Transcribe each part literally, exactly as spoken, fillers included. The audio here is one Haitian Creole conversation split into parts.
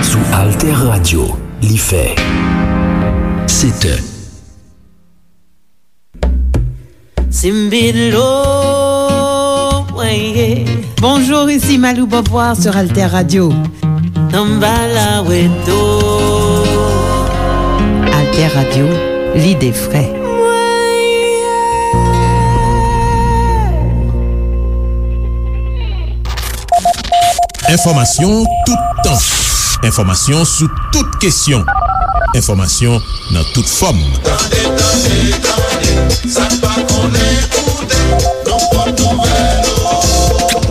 Sou Alter Radio, li fè sèt è. Simbilo, weye. Bonjour, ici Malou Beauvoir sur Alter Radio. Tambala weto. Alter Radio, l'idée vraie. Enfòmasyon toutan. Enfòmasyon sou tout kesyon. Enfòmasyon nan tout fòm. Tande, tande, tande, sa n pa konnen koute, nan pòt nouvèl yo.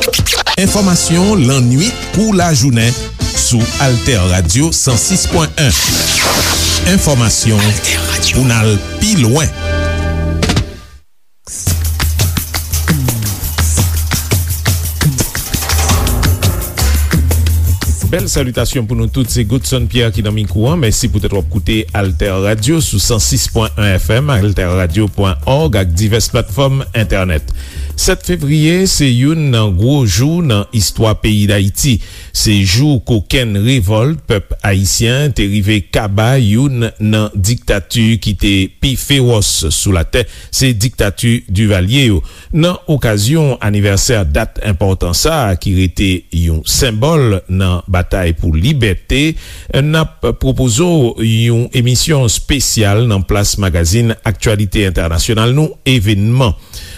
Enfòmasyon lannwit kou lajounen sou Alter Radio san sis pwen en. Enfòmasyon pou n al pi lwen. Bèl salitasyon pou nou tout, se Godson Pierre ki nan mikwo a. Mèsi poutèt w ap koute Alter Radio sou san sis pwen en F M, alter radio pwen org ak divès platfòm entènèt. Sèt fevriye se youn nan gwo jou nan istwa peyi Dayiti. Se jou kokenn revòlt pèp ayisyen te rive kaba youn nan diktati ki te pi fewòs sou latè, se diktati Divalye yo. Nan okazyon anivèsè dat enpòtan sa a ki rete yon senbòl nan batay pou libète, n ap pwopoze w yon emisyon espesyal nan plas magazin aktyalite entènasyonal nou, Evenman.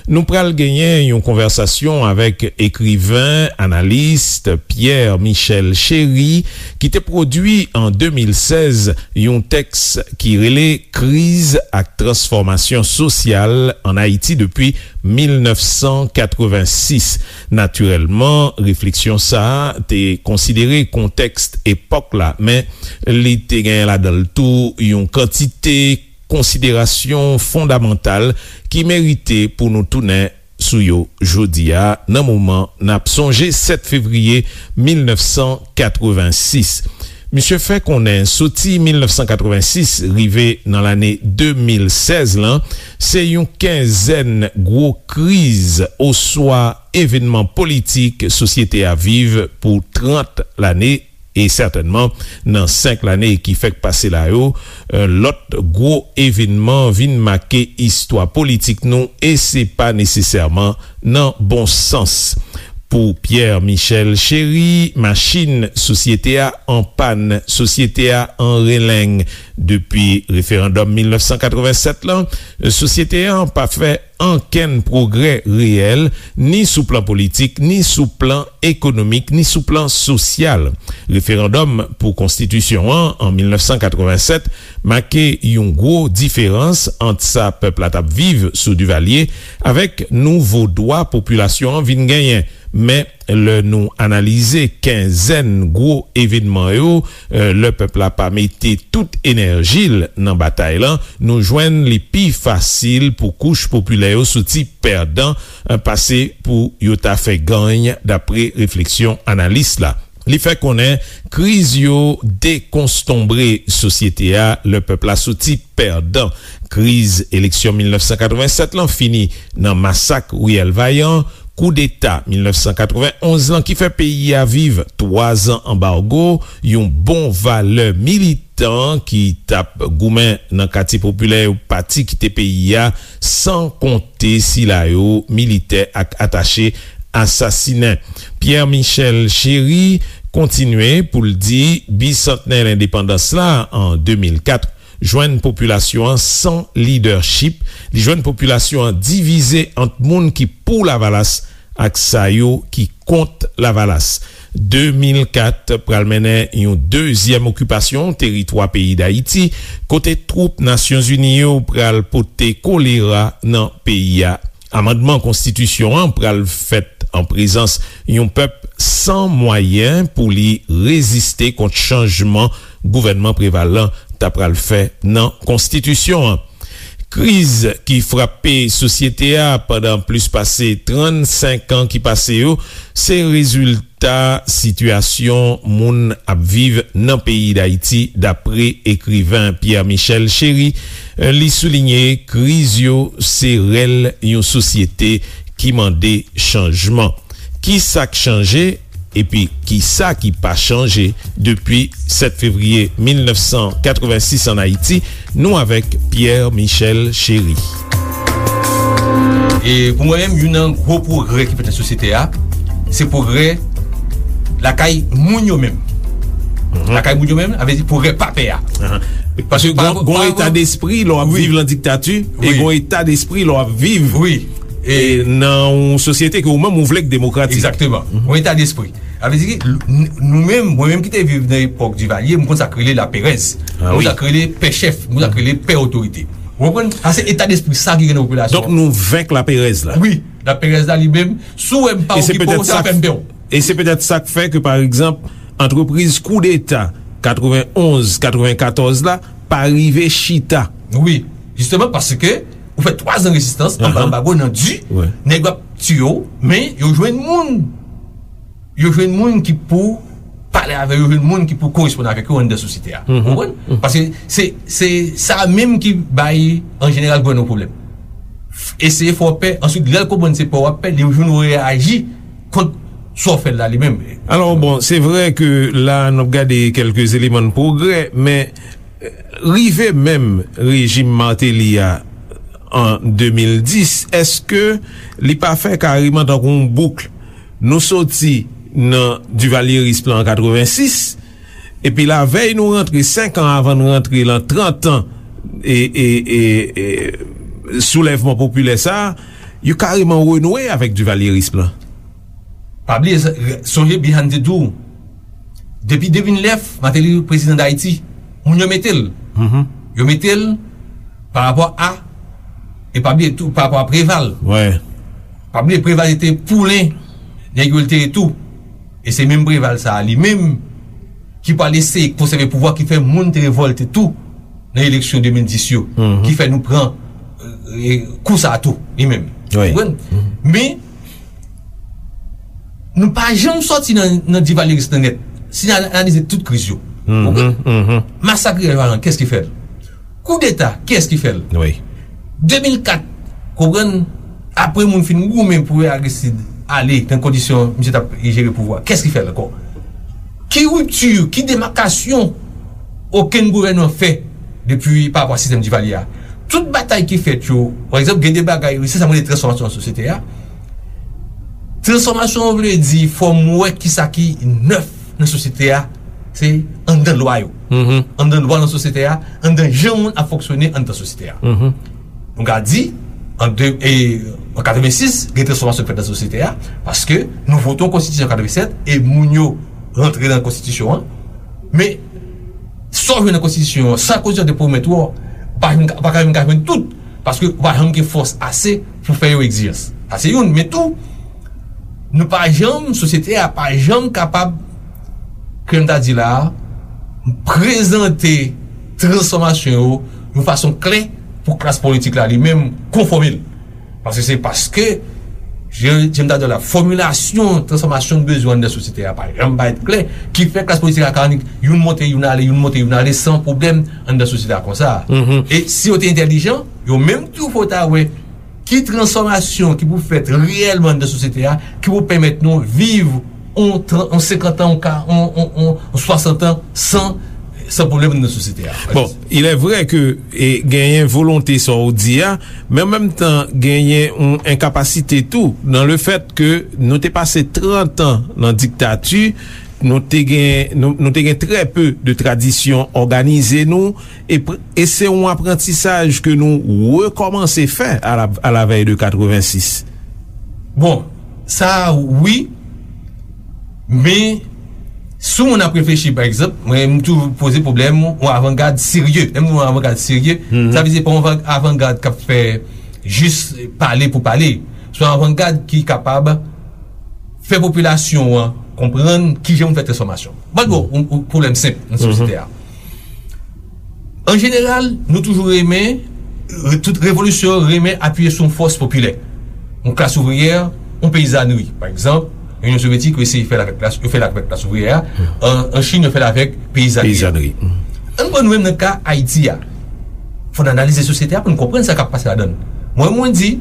Nou pral genyen yon konvèsasyon avèk ekriven, analis Pierre Michel Chéry, ki te pwodui an de mil sèz yon tèks ki rele Kriz ak transfòmasyon sosyal ann Ayiti depi mil nèf san katrevensis. Natirèlman, refleksyon sa a te konsidere kontèks epòk la, men li te genyen ladan l tou yon kantite konsiderasyon fondamantal ki merite pou nou tounen sou yo jodi a, nan moman n ap sonje sèt fevriye mil nèf san katrevensis. Misye fè konnen soti mil nèf san katrevensis rive nan lane de mil sèz lan, se yon kenzèn gwo kriz oswa evènman politik sosyete a viv pou trant lane, e sètènman, nan senk lane ki fèk pase la yo, lòt gwo evènman vin make istwa politik nou, e se pa nesesèman nan bon sans. Pou Pierre Michel Chéry, machin sosyete a an pàn, sosyete a an releng. Depi referandòm mil nèf san katrevensèt lan, sosyete a pa fè ankenn pwogrè reyèl, ni sou plan politik, ni sou plan ekonomik, ni sou plan sosyal. Referandòm pou konstitisyon an, an mil nèf san katrevensèt, make yon gwo diferans ant sa pèp la t ap viv sou Divalye avèk nouvo dwa popilasyon an vin genyen. Men, lè nou analize kenzèn gwo evènman yo, lè pèp la pa mete tout enèji l nan batay lan, nou jwenn li pi fasil pou kouch popilè yo soti pèdan, pase pou yo ta fè gany, dapre refleksyon analis la. Li fè konnen kriz yo dekonstonbre sosyete a lè pèp la soti pèdan. Kriz eleksyon mil nèf san katrevensèt lan fini nan masak riyèl Vayan, koudeta mil nèf san katrevenonz lan ki fè peyi a viv twazan anbago, yon bon valè militan ki t ap goumen nan katye popilè yo pati kite peyi a, san konte sila yo militè ak atache asasinen. Pierre Michel Chéry kontinye pou l di bisantnè lendepandans la an de mil kat jwenn popilasyon an san lidèchip, li jwenn popilasyon an divize ant moun ki pou Lavalas ak sa yo ki kont Lavalas. De mil kat pral mennen yon dezyèm okipasyon teritwa peyi Dayiti, kote twoup Nasyonzini yo pral pote kolera nan peyi a. Amandman konstitisyon an pral fèt an prezans yon pèp san mwayen pou li reziste kont chanjman gouvènman Preval lan ta pral fè nan konstitisyon an. Kriz ki frape sosyete a pandan plis pase trannsenk an ki pase yo, se rezilta sitiyasyon moun ap viv nan peyi Dayiti, dapre ekriven Pierre Michel Chéry. Li soulinye kriz yo se rèl yon sosyete ki mande chanjman. Ki sa k chanje? Epi, ki sa ki pa chanje depi sèt fevriye mil nèf san katrevensis ann Ayiti? Nou avèk Pierre Michel Chéry. E pou mwen menm, youn nan gwo pwogrè ki fèt nan sosyete a, se pwogrè lakay moun yo menm. Lakay moun yo menm, sa vle di pwogrè pa pè a. Paske gon eta despri lè w ap viv nan diktati, e gon eta despri lè w ap viv nan yon sosyete ke ou menm ou vle k demokratik. Egzakteman. Yon eta despri. Sa vle di, nou menm, mwen menm ki te viv nan epòk Divalye, m konn sa k rele laperèz. M konn sa k rele pè chèf, m konn sa k rele pè otorite. Ou konprann? Sa se eta despri sa ki gen nan popilasyon an. Donk nou venk laperèz la. Wi, laperèz la li menm, si w wè m pa okipe w, se pa pèn pè w. E se petèt sa k fè ke, pa egzanp, antrepriz koudeta katrevenonz, katrevenkatòz la pa rive chita. Wi, jisteman paske ou fè twazan rezistans anba anbago nan di, nèg yo ap tiye w, men yo jwenn moun. Yo jwenn moun ki pou pale avè yo, jwenn moun ki pou koresponn avèk yo anndan sosyete a. Ou konprann? Paske se, se sa menm ki bay, an jeneral, gouvènman pwoblèm. Eseye fè w pè, answit, lè l konprann se pè w ap pè, li jwenn ou reyaji kont sa w fè l la li menm. Alò, bon, se vre ke la n ap gade kèlke eleman de pwogrè, men rive menm rejim Martelly a an de mil dis, èske li pa fè kareman tankou yon bouk? Nou soti nan divalyeris lan an katrevensis, epi lavèy nou rantre, senk an avan n rantre lan trant an e, e, e, e soulèvman popilè sa a, yo kareman renoue avèk divalyeris lan. Pa bliye, sonje Bihan te di w, depi de mil nèf, Martelly prezidan Dayiti, moun yo mete l. Yo mete l pa rapò a, e pa bliye tou, pa rapò a Preval. Pa bliye, Preval se te poulen nèg yo l te ye tou. E se menm Preval sa a, li menm, ki pral eseye konsève pouvwa, ki fè moun te revòlte tou nan eleksyon de mil dis yo, ki fè nou pran, e, kou sa a tou, li menm. Ou konprann? Men, nou pa janm sòti nan, nan divalyeris lan nèt. Si n analize tout kriz yo, ou konprann? Masak Rivyè Vayan, kiyès ki fè l? Koudeta, kiyès ki fè l? De mil kat, konprann, apre moun fin goumen pou Aristide ale nan kondisyon misye t ap jere pouvwa, kiyès ki fè l ankò? Ki ripti, ki demakasyon okenn gouvènman fè depi pa rapò a sistèm Divalye a? Tout batay ki fèt yo, pa egzanp, gen de bagay, se sa m rele transfòmasyon nan sosyete a. Transfòmasyon an vle di fò m wè kisa ki nèf nan sosyete a, se anndan lwa yo. Anndan lwa nan sosyete a, anndan jan moun ap fonksyone anndan sosyete a. Nou ka di, an de, e, an katrevensis, gen transfòmasyon k fèt nan sosyete a, paske nou vote yon konstitisyon an katrevensèt, e moun yo rantre nan konstitisyon an. Men, sa w jwenn nan konstitisyon an, sa konstitisyon an te pwomèt ou, ou pa jwenn, ou pa ka menm ka jwenn tout, paske ou pa janm gen fòs ase pou fè yon egzijans. Sa se youn, men tou, nou pa janm, sosyete a pa janm kapab, kòm m ta di la a, prezante transfòmasyon yo yon fason klè pou klas politik la li menm konfòme l. Paske se paske, jan, jan m ta di w la, fòmilasyon transfòmasyon n bezwen anndan sosyete a pa janm parèt klè, ki fè klas politik la ka annik youn monte, youn ale, youn monte, youn ale, san pwoblèm anndan sosyete a konsa. E si yo te entèlijan, yo menm tou fò ta wè ki transfòmasyon ki pou fèt reyèlman anndan sosyete a, ki pou pèmèt nou viv on tran-, on senkant an, on ka-, on, on, on, on swasant an san, san pwoblèm anndan sosyete a. Bon, il est vrai que, e, genyen volonte sa w di a, men an menm tan genyen yon enkapasite tou nan le fèt ke nou te pase trant an nan diktati, nou te gen, nou, nou te gen trè pe de tradisyon òganize nou, e, e se yon aprantisaj ke nou rekòmanse fè a la, a la vèy de katrevensis. Bon, sa wi, men si yon moun ap reflechi, pa egzanp, mwen, m toujou poze pwoblèm yon avangad serye. Lè m di yon avangad serye, sa vle di pa yon avan-, avangad k ap fè jis pale pou pale. Se yon avangad ki kapab fè popilasyon an konprann kijan pou fè transfòmasyon. Ban nou yon, yon pwoblèm senp nan sosyete a. An jeneral, nou toujou renmen Re- tout revolisyon renmen apiye sou yon fòs popilè. Yon klas ouvriyè, yon peyizanri. Pa egzanp, Inyon Sovyetik, yo eseye fè l avèk klas, yo fè l avèk klas ouvriyè a. An, an Chin, yo fè l avèk peyizanri. Peyizanri. Ann pran nou menm nan ka Ayiti a. Fò n analize sosyete a pou n konprann sa k ap pase ladan l. Mwen, mwen di,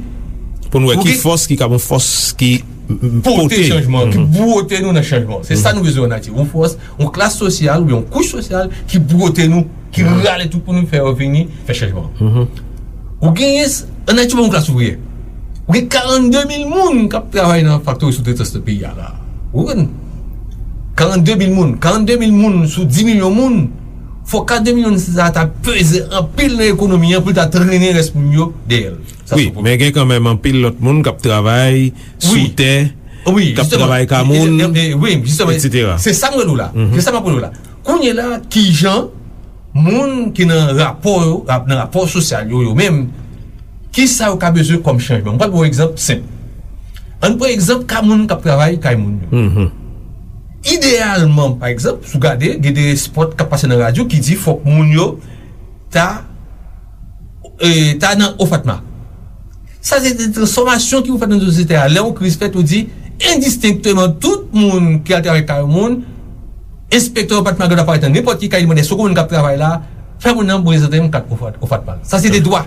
Pou n wè ou ki gen fòs ki kab yon fòs ki m- m- pote pote. Chanjman, ki bwote nou nan chanjman. Se sa nou bezwen an Ayiti. Yon fòs, yon klas sosyal oubyen yon kouch sosyal ki bwote nou, ki rale tout pou nou fè yo vini, fè chanjman. Ou genyen, s- an Ayiti, yon klas ouvriyè. Ou gen karannde mil moun k ap travay nan faktori soutretans nan peyi a la. Ou konprann? Karannde mil moun. Karannde mil moun sou di milyon moun. Fò karannde milyon sa ta peze anpil nan ekonomi an pou l ta trennen rès moun yo dèyè l. Sa Wi, se yon pwoblèm. Men gen kanmenm anpil lòt moun k ap travay sou Wi. Tè, Wi, k ap jisteman. travay kamoun, E, e, e, wi, jisteman. Etsetera. Se sa m rele w la. Se sa m ap rele w la. Kounye la, kijan moun ki nan rapò yo, rap- nan rapò sosyal yo, yo menm, ki sa yo ka bezwen kòm chanjman? M pral ba w egzanp senp. Ann pran egzanp ka moun k ap travay kay moun yo. Ideyalman, pa egzanp, si w gade, gen de spòt k ap pase nan radyo ki di fòk moun yo ta, e, ta nan OFATMA. Sa se de transfòmasyon ki pou fèt nan sosyete a. Lè yon kriz fèt, ou di, endistenkteman, tout moun ki al travay kay moun, enspektè OFATMA gen dwa parèt nan nenpòt ki kay, li mande, "Èske w konn moun k ap travay la?" Fè moun nan prezante yon kat OFATMA. Sa se de dwa.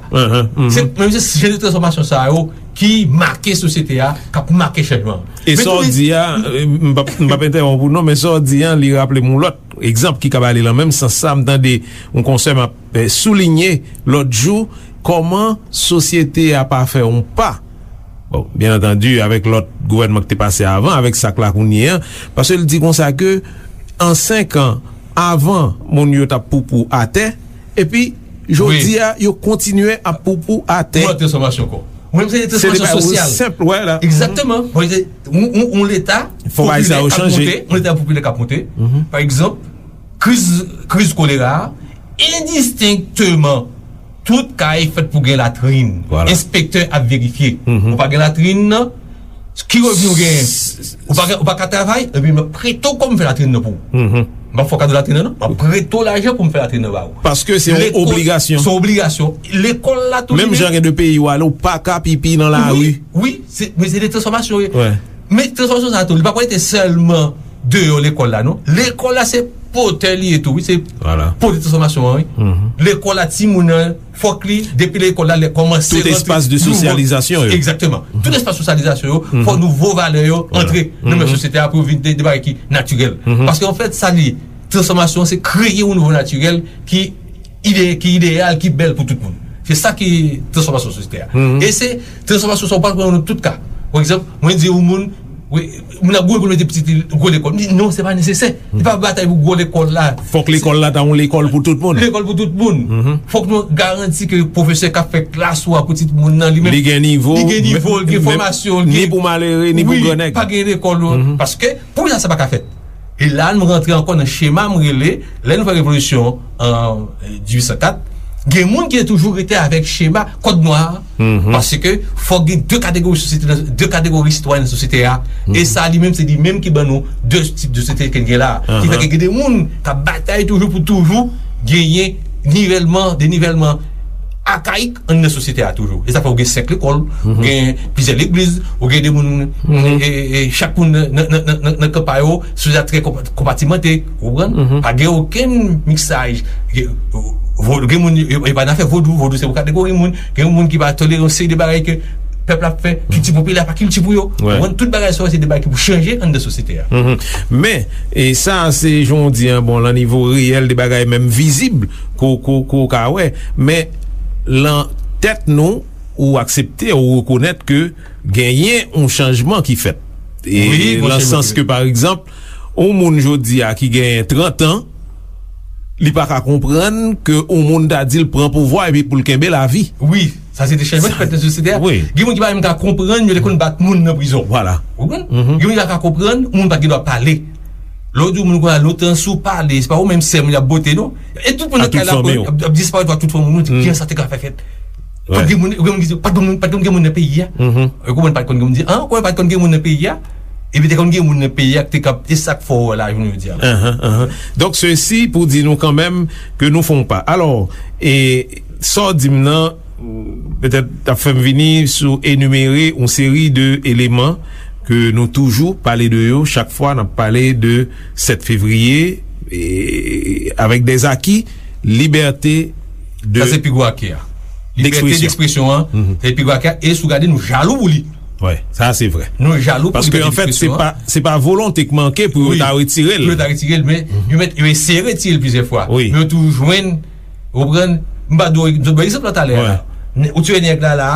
Se, men se jan de transfòmasyon sa yo ki make sosyete a, k ap make chanjman. E sa w di a, e, m p ap, m p ap entèwonp ou non, men sa w di a, li raple m yon lòt egzanp ki kab ale nan menm sans sa. M tande yon konsè m ap, e, soulinye lòt jou, kòman sosyete a pa fè yon pa. Bon, byen antandi, avèk lòt gouvènman ki te pase avan, avèk sa k la kounye a, paske l di konsa ke an senk an, avan, moun yo t ap poupou atè, epi jodi a, yo kontinye ap poupou atè. Ou wè transfòmasyon ankò. Ou menm se de transfòmasyon sosyal. Senp, wè la. Egzakteman. Bon, se, yon, yon, yon leta popilè k ap monte, yon leta popilè k ap monte. Pa egzanp, kriz, kriz kolera a, endistenkteman, tout kay fèt pou gen latrin. Enspektè ap verifye. Ou pa gen latrin nan, ki revni w genyen? Ou pa, ou pa ka travay, epi m ap prete w kòb m fè latrin nan pou ou. M pa fè w kado latrin nan, non. M ap prete w lajan pou m fè latrin nan ba ou. Paske se yon obligasyon. Se yon obligasyon. Lekòl la tou li menm. Menm jan gen de peyi w ale, ou pa ka pipi nan lari. Wi, wi, se, men se de transfòmasyon, wi. Men transfòmasyon sa tou, li pa pou rete sèlman deyò lekòl la, non. Lekòl la se pòtè li ye tou, wi, se pòtè transfòmasyon an, wi. Lekòl la, timoun nan, fòk li, depi lekòl la, lè kòmanse rantre. Tout espas de sosyalizasyon yo. Egzakteman. Tout espas sosyalizasyon yo, fòk nouvo valè yo antre nan men sosyete a pou yo vin de, de bagay ki natirèl. Paske, anfèt, sa li ye, transfòmasyon, se kreye yon nouvo natirèl ki ide, ki ideyal, ki bèl pou tout moun. Se sa ki transfòmasyon sosyete a. E se transfòmasyon sa w pral pran nan tout ka. Pa egzanp, mwen di yon moun, wi, moun ap gwo pou mete pitit li gwo lekòl. M di, non, se pa nesesè. Se pa batay pou gwo lekòl la. Fòk lekòl la ta yon lekòl pou tout moun. Lekòl pou tout moun. Fòk nou garanti ke pwofesè k ap fè klas ou a pou timoun nan, li menm, li gen nivo, li gen nivo, li gen fòmasyon, li gen, ni pou malere, ni pou grannèg. Pa gen lekòl, paske pou sa, sa pa ka fèt. E la, nou rantre ankò nan chema m rele, lè nou fè revolisyon an, e, dizuit san kat, gen moun ki te toujou rete avèk chema kòd nwa a, paske fòk gen de kategori sosyete, de kategori sitwayen nan sosyete a. E sa, li menm, se li menm ki ban nou de tip de sosyete ke n gen la a. Ki fè ke gen de moun k ap batay toujou pou toujou genyen nivèlman, denivèlman akayik anndan sosyete a toujou. E sa fè ou gen senk lekòl, ou gen plizyè legliz, ou gen de moun, e, e, e, chak moun nan, nan, nan, nan, nan, nan kan pa yo, sosyete a trè konpa-, konpatimante, ou konprann? Pa gen okenn miksaj. Gen, vo-, gen moun, yo, yo pa nan afè vodou, vodou se yon kategori moun, gen moun ki pa tolere yon seri de bagay ke pèp la ap fè, kilti popilè pa kilti pou yo. Ou konprann? Tout bagay sa yo se de bagay ki pou chanje anndan sosyete a. Men, e sa, se jan w di an, bon, lan nivo reyèl de bagay menm vizib, ko, ko, ko ka wè. Men, lan tèt nou, ou aksepte, ou rekonèt ke genyen yon chanjman ki fèt. E wi, lan sans ke, pa egzanp, yon moun jodi a ki genyen trant an, li pa ka konprann ke yon moun ta di l pran pouvwa epi pou l kenbe lavi. Wi, sa se de chanjman ki fèt nan sosyete a. Wi. Gen moun ki pa menm ka konprann, yo te konn bat moun nan prizon. Vwala. Ou konprann? Gen moun ki pa ka konprann, yon moun pa t gen dwa pale. Lè w di yon moun konsa, lontan, si w pale, se pa ou menm sèl moun y ap bote, non. E tout moun nan kay la ap, ap, ap disparèt, tout fanmi w, di, kijan sa te ka fè fèt? Pa t gen moun, gen moun ki di, pa t gen moun, pa t gen moun nan peyi a. Ou konprann, pa t konn gen moun di, an, ou konprann, pa t konn gen moun nan peyi a. Epi te konn gen moun nan peyi a ki te ka, e sa k fè w wè la, jounen jodi a. Donk, sesi pou di nou kanmenm ke nou fè yon pa. Alò, e, sa w di m nan, Petèt, t ap fè m vini sou enimere yon seri de eleman ke nou toujou pale de yo chak fwa n ap pale de sèt fevriye, e, avèk dèzaki, libète de Sa se pi gwo ake a. Libète dekspresyon an, se pi gwo ake a. E si w gade, nou jalou pou li. Wi, sa se vre. Nou jalou pou Paske, anfèt, se pa, se pa volonte k manke pou yo ta retire l. Pou yo ta retire l, men yo mèt, yo eseye retire l plizyè fwa. Wi. Men yo toujou jwenn, ou konprann? M pa dwe, m te bay egzanp la talè a. Ou tire nèg la la,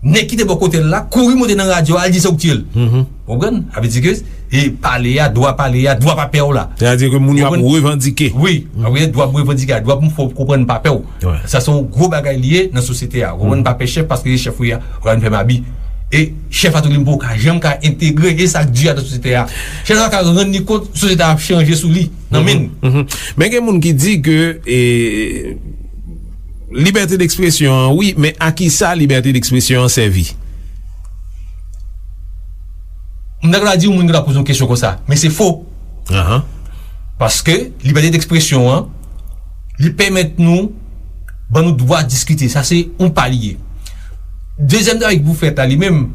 nèg ki te bò kote l la, kouri monte nan radyo, al di se ou k tiye l. Ou konprann? Sa vle di ke, e pale a, dwa pale a, dwa pa pè w la. Sètadi ke moun yo ap revandike. Wi, ap gen dwa pou revandike a, dwa pou m fè w konprann pa pè w. Sa se yon gwo bagay li ye nan sosyete a. Ou konprann? Pa pè chèf paske se chèf ou ye a, ou konprann, fè m abi. E chèf la tou li menm poko ka janm ka entegre, e sa k di a nan sosyete a. Chèf la ka rann li kont sosyete a ap chanje sou li, nan men l. Men gen moun ki di ke, e, libète dekspresyon an, wi, men a ki sa libète dekspresyon an sèvi? M ta ka di yon moun ki ta poze yon kesyon konsa, men se fo. Paske libète dekspresyon an, li pèmèt nou, ban nou dwa diskite. Sa se yon pa li ye. Dezyèm travay ki pou fèt la, li menm,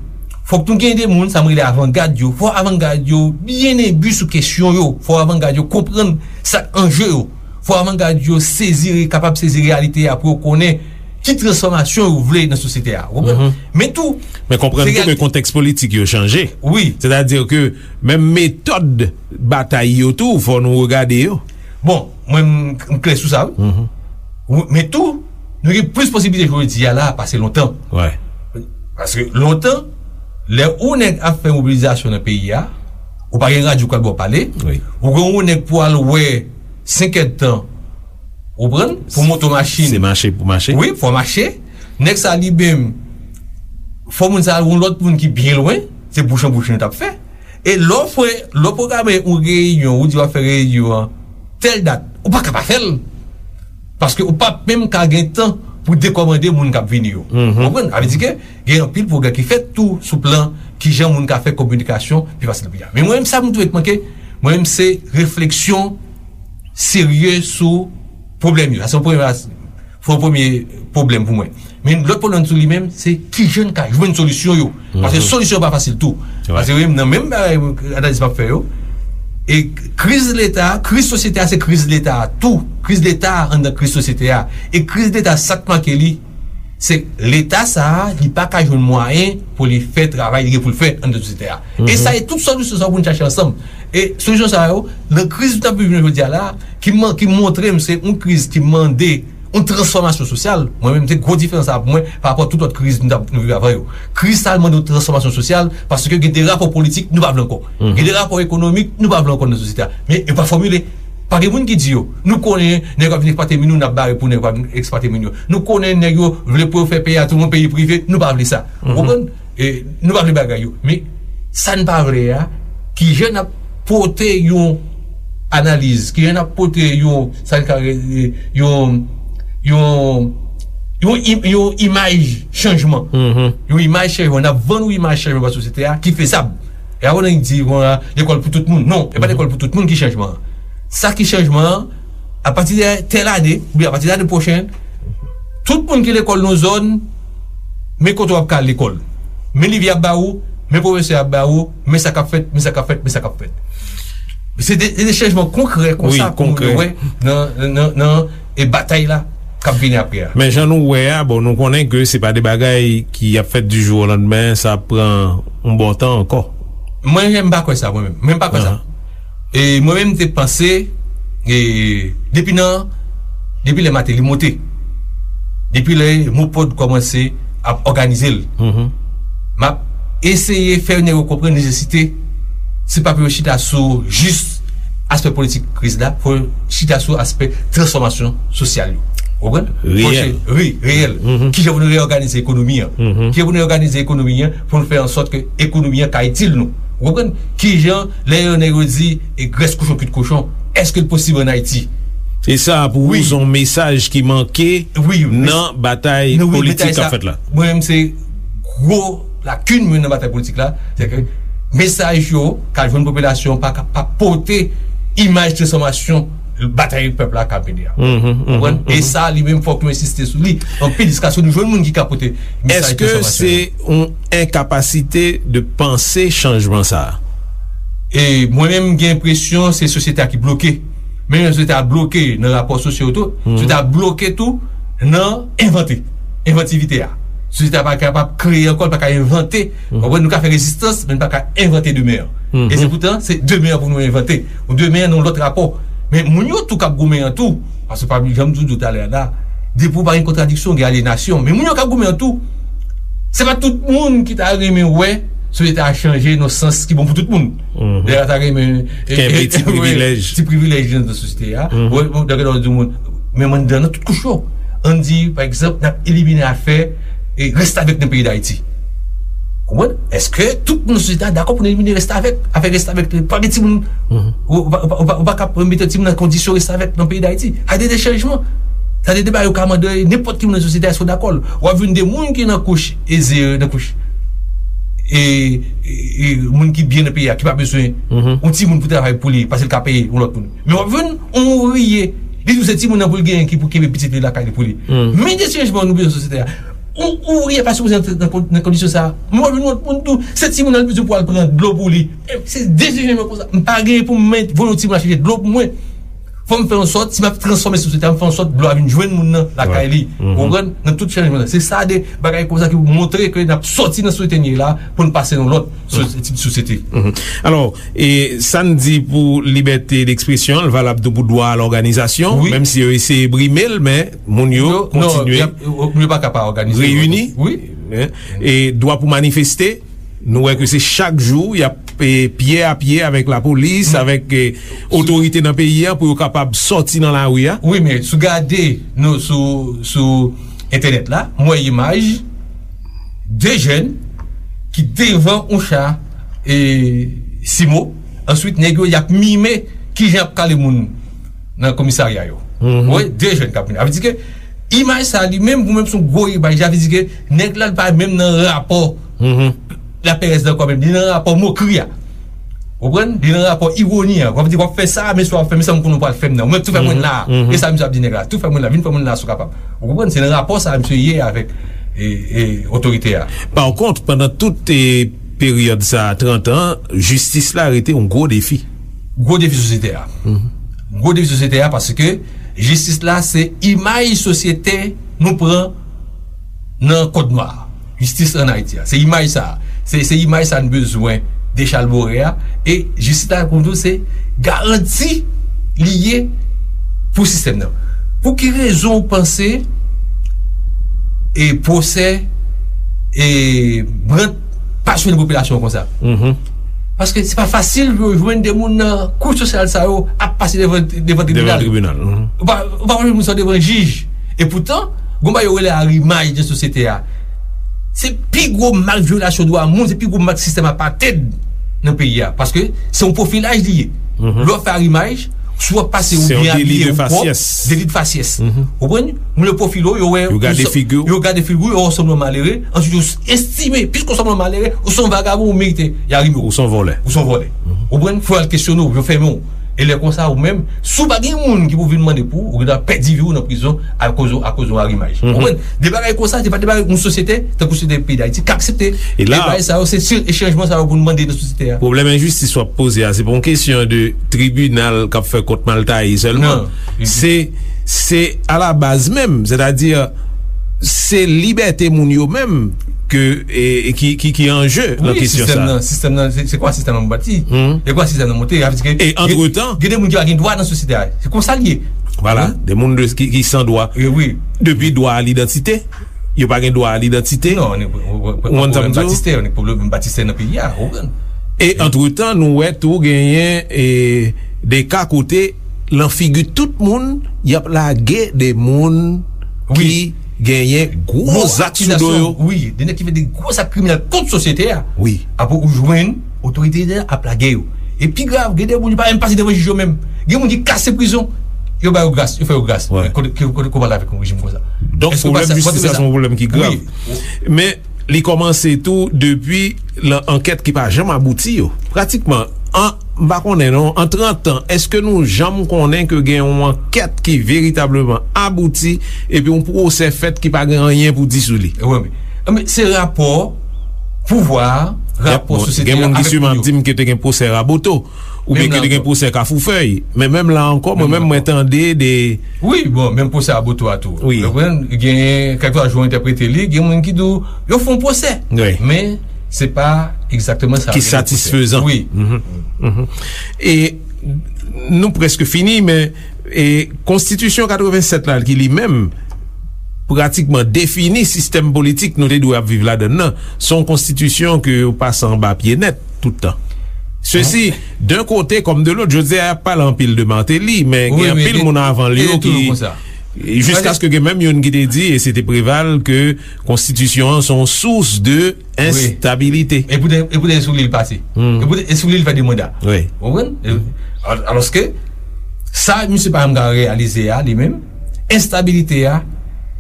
fòk nou gen de moun, sa m rele avangad yo. Fò avangad yo byen enbi sou kesyon yo. Fò avangad yo konprann sa k anje yo. Fò avangad yo sezi, kapab sezi reyalite a pou yo konnen ki transfòmasyon yo vle nan sosyete a. Ou konprann? Men tou, Men konprann tou ke kontèks politik yo chanje. Wi. Sètadi ke menm metòd batay yo tou, fò nou regade yo. Bon, mwen, m, m klè sou sa, wi. Wi, men tou, nou gen plis posiblite jodi a la pase lontan. Paske lontan, lè ou nèg ap fè mobilizasyon nan peyi a, ou pa gen radyo k ap ba w pale, ou gen yon nèg pou al wè senk èdtan, ou konprann, pou monte yon machin. Se mache pou mache. Wi, fò mache. Nèg sa li menm, fò moun sa al yon lòt moun ki byen lwen, se bouch an bouch nou t ap fè. E lè w fè, lè w pwograme yon reyinyon, ou di w ap fè reyinyon an tèl dat, ou pa ka pa fè l. Paske ou p ap menm ka gen tan pou dekòmande moun k ap vini yo. Ou konprann? Sa vle di ke gen anpil pwogrè ki fèt tou sou plan kijan moun ka fè kominikasyon pi fasil pou yo. Men mwen menm, sa m twouve k manke, mwen menm, se refleksyon serye sou pwoblèm yo. Sa se yon premye, se yon premye pwoblèm pou mwen. Men lòt pwoblèm tou li menm, se kijan n ka jwenn solisyon yo. Paske solisyon yo pa fasil tou. Paske wi, nan menm bagay, analiz m ap fè yo, e kriz Leta, kriz sosyete a, se kriz Leta a tou. Kriz Leta a anndan kriz sosyete a. E kriz Leta, sa k make li, se Leta sa a, li pa ka jwenn mwayen pou li fè travay li gen pou l fè anndan sosyete a. E sa e tout solisyon sa yo pou n chache ansanm. E solisyon sa yo, nan kriz nou t ap viv jodi a la, ki man-, ki montre m se yon kriz ki mande yon transfòmasyon sosyal. Mwen menm, se gwo diferans sa pou mwen pa rapò tout lòt kriz nou t ap, nou viv avan yo. Kriz sa a mande yon transfòmasyon sosyal paske gen de rapò politik nou pa vle ankò. Gen de rapò ekonomik nou pa vle ankò nan sosyete a. Men yo pa fòmile. Pa gen moun ki di yo. Nou konnen nèg yo ap vin eksplwate moun yo, n ap bare pou nèg yo pa vin eksplwate moun yo. Nou konnen nèg yo vle pou yo fè peyi a tounen yon peyi prive, nou pa vle sa. Ou konprann? E, nou pa vle bagay yo. Men, sa n pa vle a, kijan n ap pote yon analiz, kijan n ap pote yon, sa n ka rele, yon, yon, yon, im-, yon imaj chanjman. Yon imaj chanjman. N ap vann yon imaj chanjman ba sosyete a ki fezab. E avan n di, bon, a, lekòl pou tout moun. Non, e pa lekòl pou tout moun ki chanjman an. Sa ki chanjman an, apati de tèl ane, oubyen apati de ane pwochèn, tout moun ki lekòl nan zòn, men kote w ap ka al lekòl. Men liv y ap ba ou, men pwofesè y ap ba ou, men sa k ap fèt, men sa k ap fèt, men sa k ap fèt. Se de, se de chanjman konkrè konsa pou moun yo wè nan, nan, nan, e batay la k ap vini apre a. Men jan nou wè a, bon, nou konnen ke se pa de bagay ki ap fèt du jour au lendemain, sa ap pran yon bon tan ankò. Mwen menm, m pa kwè sa, mwen menm. Mwen, m pa kwè sa. E mwen menm, m te panse, e depi nan, depi lè Mateli monte, depi lè MOPOD kòmanse ap òganize l, m ap eseye fè nèg yo konprann nesesite, se pa pou yo chita sou jis aspè politik kriz la, fò yo chita sou aspè transfòmasyon sosyal yo. Ou konprann? Reyèl. Wi, reyèl. Kijan pou nou reyòganize ekonomi an? Kijan pou nou reyòganize ekonomi an pou nou fè an sòt ke ekonomi an ka itil nou? Ou konprann? Kijan, lè yo, nèg yo di, e grès kochon, kuit kochon, èske l posib ann Ayiti? E sa, pou ou, se yon mesaj ki manke nan batay politik k ap fèt la? Mwen menm, se gwo lakin mwen nan batay politik la, se ke mesaj yo k al jwenn popilasyon pa, pa pote imaj transfòmasyon batay pèp la ka mennen an. Konprann? E sa, li menm, fòk nou ensiste sou li anpil, jiskaske nou jwenn moun ki ka pote mesaj transfòmasyon. Èske se yon enkapasite de panse chanjman sa a? E mwen menm, m gen enpresyon se sosyete a ki bloke. Men sosyete a bloke nan rapò sosyo tou, sosyete a bloke tou nan envante. Envantivite a. Sosyete a pa kapab kreye ankò, l pa ka envante. Konprann? Nou ka fè rezistans, men n pa ka envante demen an. E se poutan, se demen an pou nou envante. Ou demen an nan yon lòt rapò. Men moun yo tou k ap goumen an tou, paske pa janm di w talè a la, depi w pa gen kontradiksyon, gen alyenasyon. Men moun yo k ap goumen an tou, se pa tout moun ki ta renmen wè sosyete a chanje nan sans ki bon pou tout moun. Lè a ta renmen, e, kenbe e, ti e, privilèj. Ti privilèj nan sosyete a. Wè, bon, dakò, di moun, menm anndan nan tout kouch yo. Ann di, pa egzanp, n ap elimine afè, e, restavèk nan peyi Dayiti. Konprann? Èske tout moun nan sosyete a dakò pou nou elimine restavèk? Afè restavèk, pa gen timoun, ou, ou, ou, ou, ou pa ka mete timoun nan kondisyon restavèk nan peyi Dayiti. Sa de, de chanjman. Sa de, de bagay ou ka mande nenpòt ki moun nan sosyete a, èske w dakò l? W ap jwenn de moun ki nan kouch eze, nan kouch, e, e, e, moun ki byen nan peyi a, ki pa bezwen yon timoun pou travay pou li, paske l ka peye yon lòt moun. Men w ap jwenn yon ouvriye, li di w se timoun nan pou l genyen ki pou kenbe pitit li lakay li pou li. Men de chanjman nou bezwen nan sosyete a. Yon ouvriye pa sipoze antre nan kon-, nan kondisyon sa a. Men w ap jwenn yon lòt moun tou, se timoun nan li bezwen pou al pran dlo pou li. E se de chanjman konsa. M pa genyen pou m voye yon timoun al chèche dlo pou mwen. Fò m fè yon sòt, si m ap transfòme sosyete a, m fè yon sòt dlo a vin jwenn moun nan lakay li. Ou konprann? Nan tout chanjman. Se sa de bagay konsa ki montre ke n ap sòti nan sosyete n ye la pou n pase nan lòt sosyete, tip sosyete. Alò, e sa n di pou libète dekspresyon, l valab tou pou dwa a lòganizasyon, menm si yo eseye brime l, men moun yo kontinye reyini. E dwa pou manifeste, nou wè ke se chak jou y ap, e, pye a pye avèk lapolis, avèk, e, otorite nan peyi a pou yo kapab sòti nan lari a. Wi, men si w gade nou sou, sou entènèt la, m wè imaj de jèn ki devan yon cha, e, simo. Answit, nèg yo, y ap mime kijan y ap kale moun nan komisarya yo. Ou wè, de jèn k ap mime. Sa vle di ke imaj sa li menm, pou menm se yon gwo imaj, sa vle di ke nèg la, li pa menm nan rapò laperèz la ankò menm, li nan rapò mokri a. Ou konprann? Li nan rapò iwoni a. W ap di, w ap fè sa, men si w ap fè, men sa m konnen w pral fè m nan. Ou menm tou fè mwen la. E sa misye ap di nèg la, tou fè mwen la, vin fè mwen la si w kapab. Ou konprann? Se nan rapò sa a misye ye avèk, e, e, otorite a. Pa kont, pandan tout, e, peryòd sa a, trant an, jistis la rete yon gwo defi. Gwo defi sosyete a. Gwo defi sosyete a, paske jistis la se imaj sosyete nou pran nan kòd nwa. Jistis ann Ayiti a. Se imaj sa a. Se, se imaj sa a n bezwen dechalbore a. E jistis la, pou nou, se garanti li ye pou sistèm nan. Pou ki rezon w panse e pwosè e Brandt pa swen popilasyon an konsa? Paske se pa fasil pou yo jwenn de moun nan kouch sosyal sa yo ap pase devan, devan tribinal. Ou pa, ou pa jwenn moun sa yo devan jij. E poutan, gon bagay yo rele arimaj nan sosyete a. Se pi gwo mak vyolasyon dwa moun, se pi gwo mak sistèm apartheid nan peyi a. Paske se yon pwofilaj li ye. Lè w fè arimaj, si w ap pase ou byen abiye, ou pwòp, deli de fasyès. Ou konprann? Moun yo pwofile w, yo wè, yo gade figi w, yo wè w sanble yon malere, answit yo estime, piske w sanble yon malere, ou se yon vagabon, ou merite y arime w. Ou se yon vòlè. Ou se yon vòlè. Ou konprann? Fò y al kesyone w, yo fèmen w. E lè konsa, ou menm, si w pa gen moun ki pou vin mande pou ou, ou gentan pèdi vi w nan prizon akoz, akoz yon arimaj. Ou konprann? De bagay konsa, se pa de bagay yon sosyete, tankou sosyete peyi Dayiti, k aksepte. E la, de bagay sa yo, se, se chanjman sa yo pou nou mande nan sosyete a. Pwoblèm enjistis w ap poze a, se pa yon kesyon de tribinal k ap fè kont mal taye sèlman. Se, se alabaz menm, sètadi, se libète moun yo menm ke, e, e ki, ki, ki an je nan kesyon sa. Wi, sistèm nan, sistèm nan, se, se kwa sistèm nan bati? Se kwa sistèm nan monte? Sa vle di ke, e, antretan, gen de moun ki pa gen dwa nan sosyete a. Se konsa l ye. Vwala, de moun de, ki, ki san dwa. Wi, wi. Depi dwa a lidantite, yo pa gen dwa a lidantite. Non, ou konprann sa m di w? Batistè, pwoblèm batistè nan peyi a, ou konprann? E antretan, nou wè tou genyen, e, de ka kote lan figi tout moun, y ap lage de moun ki genyen gwo zak sou do yo. Wi, de nèg ki fè de gwo zak kriminèl kont sosyete a. Wi. Apre ou jwenn otorite a ap lage yo. E pi grav, gen de moun yo pa menm pase devan jij yo menm. Gen moun ki kase prizon, yo ba yo gras, yo fè yo gras. Kote, kote, kote w pral avèk yon rejim konsa? Donk, pwoblèm jistis la se yon pwoblèm ki grav. Men, li kòmanse tou depi lan ankèt ki pa janm abouti yo. Pratikman, an, M pa konnen non, an trant an, èske nou janm konnen ke gen yon ankèt ki veritableman abouti epi yon pwosè fèt ki pa gen anyen pou di sou li? Wi, men, men se rapò pouvwa, rapò sosyete a avèk moun yo. Gen moun ki siman ap di m ke te gen pwosè Raboto, oubyen ke te gen pwosè Kafoufèy. Men menm la ankò, mwen menm, mwen tande de Wi, bon, menm pwosè Raboto a tou. Wi. Ou konprann? Gen, kèlkeswa jan w entèprete li, gen moun ki di w, yo fè yon pwosè. Wi. Men, se pa egzakteman sa ki satisfezan. Wi. E nou prèske fini, men e konstitisyon katrevennsèt la, ki li menm pratikman defini sistèm politik nou te dwe ap viv ladann nan, se yon konstitisyon ke yo pase anba pye nèt tout tan. Sesi, d'un côté comme de l'autre, jodi a y ap pale anpil de Martelly, men gen anpil moun avan l yo ki, jiskaske gen menm youn ki te di, e se te Preval, ke konstitisyon an se yon sous de enstabilite. E poutèt, e poutèt e sou li l pase. E poutèt e sou li l fè de manda. Wi. Ou konprann? E, al-, alòske, sa misye pa menm ka reyalize a, li menm, enstabilite a,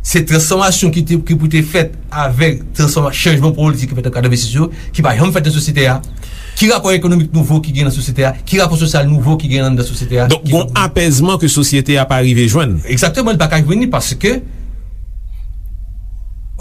se transfòmasyon ki te, ki pou te fèt avèk transfòma-, chanjman politik ki fèt an katrevensis yo, ki pa janm fèt nan sosyete a. Ki rapò ekonomik nouvo ki gen nan sosyete a? Ki rapò sosyal nouvo ki gen anndan sosyete a? Donk, gon apèzman ke sosyete a pa rive jwenn. Egzakteman, li pa ka jwenn li paske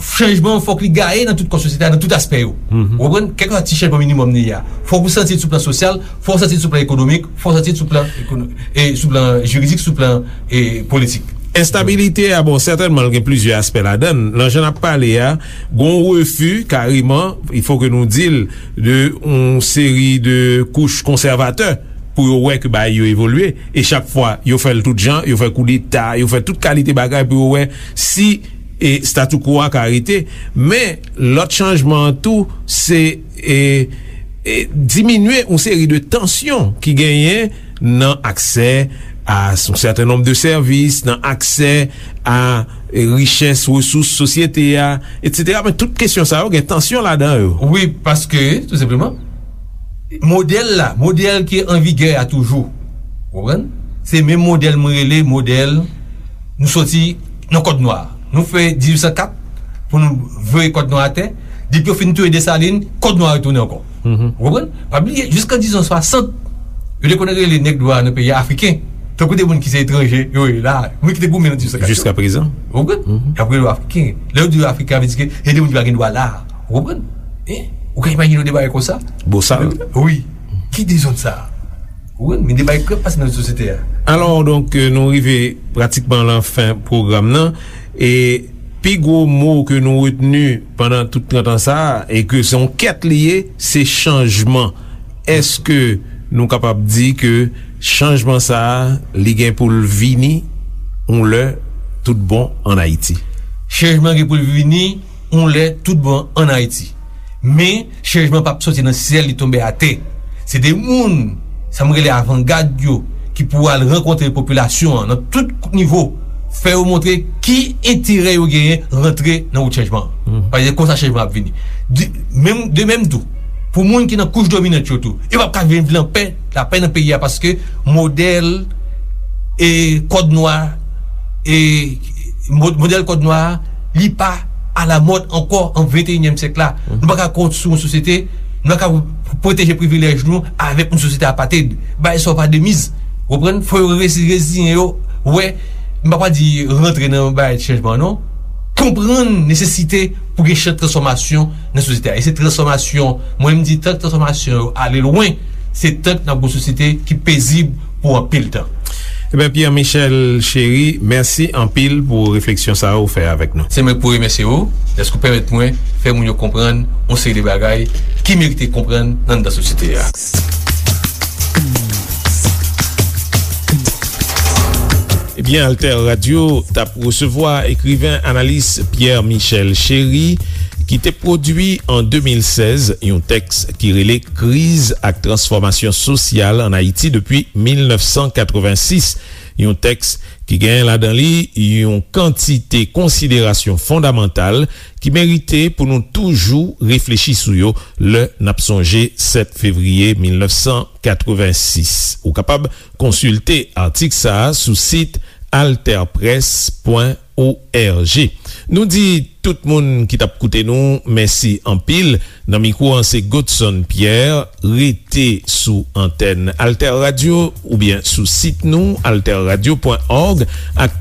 chanjman an fòk li gaye nan tout kò sosyete a, nan tout aspè yo. Ou konprann? Kèlkeswa ti chanjman minimòm li ye a. Fòk ou santi l sou plan sosyal, fòk ou santi l sou plan ekonomik, fòk ou santi l sou plan ekono-, e sou plan jiridik, sou plan, e politik. Enstabilite a, bon, sètènman, l gen plizyè aspè ladan l. Nan jan n ap pale a, gon refi, kareman, il faut que nou di l, de yon seri de kouch konsèvatè pou yo wè ke bagay yo evolye. E chak fwa, yo fè l tout jan, yo fè koudeta, yo fè tout kalite bagay pou yo wè si, e, statu quo a ka rete. Men, lòt chanjman an tou, se, e, e, diminye yon seri de tansyon ki genyen nan aksè a yon sèten nonb de sèvis, nan aksè a, e, richès, resous sosyete a, etsetera. Men tout kesyon sa yo gen tansyon ladan yo. Wi, paske, tou senpleman, modèl la, modèl ki an vigè a toujou, ou konprann? Se menm modèl mwen rele modèl nou soti nan kòd nwa. Nou fè dizuit san kat pou nou voye kòd nwa atè. Depi yo fin touye Desalin, kòd nwa retounen ankò. Ou konprann? Pa bliye, jiska dizuit san swasant, yo te konn rele nèg dwa nan peyi a Afriken. Tankou de moun ki se etranje, yo ye la, moun ki te goumen nan dizuit san kat yo. Jiska prezan. Ou konprann? Y ap rele yo Afriken. Lè yo di yo Afriken, sa vle di ke se de moun ki pa gen dwa la. Ou konprann? Hein? Ou ka imajine w de bagay konsa? Bosal. Wi. Ki dezòd sa? Ou konprann? Men de bagay k ap pase nan sosyete a. Alò, donk, euh, nou rive pratikman lan fen pwogram nan. E pi gwo mo ke nou retni pandan tout trant an sa a, e ke se yon kèt li ye, se chanjman. Èske nou kapab di ke chanjman sa a, li gen pou l vini yon lè tout bon ann Ayiti? Chanjman gen pou l vini yon lè tout bon ann Ayiti. Men, chanjman p ap soti nan syèl, li tonbe atè. Se de moun, sa m rele avangad yo, ki pou al rankontre popilasyon an nan tout nivo, fè yo montre ki enterè yo genyen rantre nan wout chanjman an. Paske se konsa chanjman ap vini. De, menm, de menm tou, pou moun ki nan kouch dominant yo tou, yo p ap ka viv lan pè, lapè nan peyi a, paske modèl, e, kòd nwa, e, mo-, modèl kòd nwa a, li pa alamòd ankò an venteyinyèm syèk la. Nou pa ka konstwi yon sosyete, nou pa ka pwoteje privilèj nou avèk yon sosyete apatrid. Bagay sa yo pa de miz. Ou konprann? Fò yo resi-, reziyen yo, wè, m pa pral di rantre nan bagay chanjman non. Konprann nesesite pou gen chan transfòmasyon nan sosyete a. E se transfòmasyon, mwen m di tank transfòmasyon yo ale lwen, se tank n ap gen yon sosyete ki pezib pou anpil tan. Ebyen, Pierre Michel Chéry, mèsi anpil pou refleksyon sa a ou fè avèk nou. Se mwen k pou remèsye ou, dèske ou pèmèt mwen fè moun yo konprann yon seri de bagay ki merite konprann nan, nan sosyete a. Ebyen, Alter Radio t ap resevwa ekriven, analis Pierre Michel Chéry, ki te pwodui an de mil sèz yon tèks ki rele Kriz ak transfòmasyon sosyal ann Ayiti depi mil nèf san katrevensis, yon tèks ki gen ladan li yon kantite konsiderasyon fondamantal ki merite pou nou toujou reflechi sou yo lè n ap sonje sèt fevriye mil nèf san katrevensis. Ou kapab konsilte atik sa a sou sit alterpress pwen org. Nou di tout moun ki t ap koute nou mèsi anpil. Nan mikwo an se Godson Pierre. Rete sou antèn Alter Radio oubyen sou sit nou, alterradio pwen òg, ak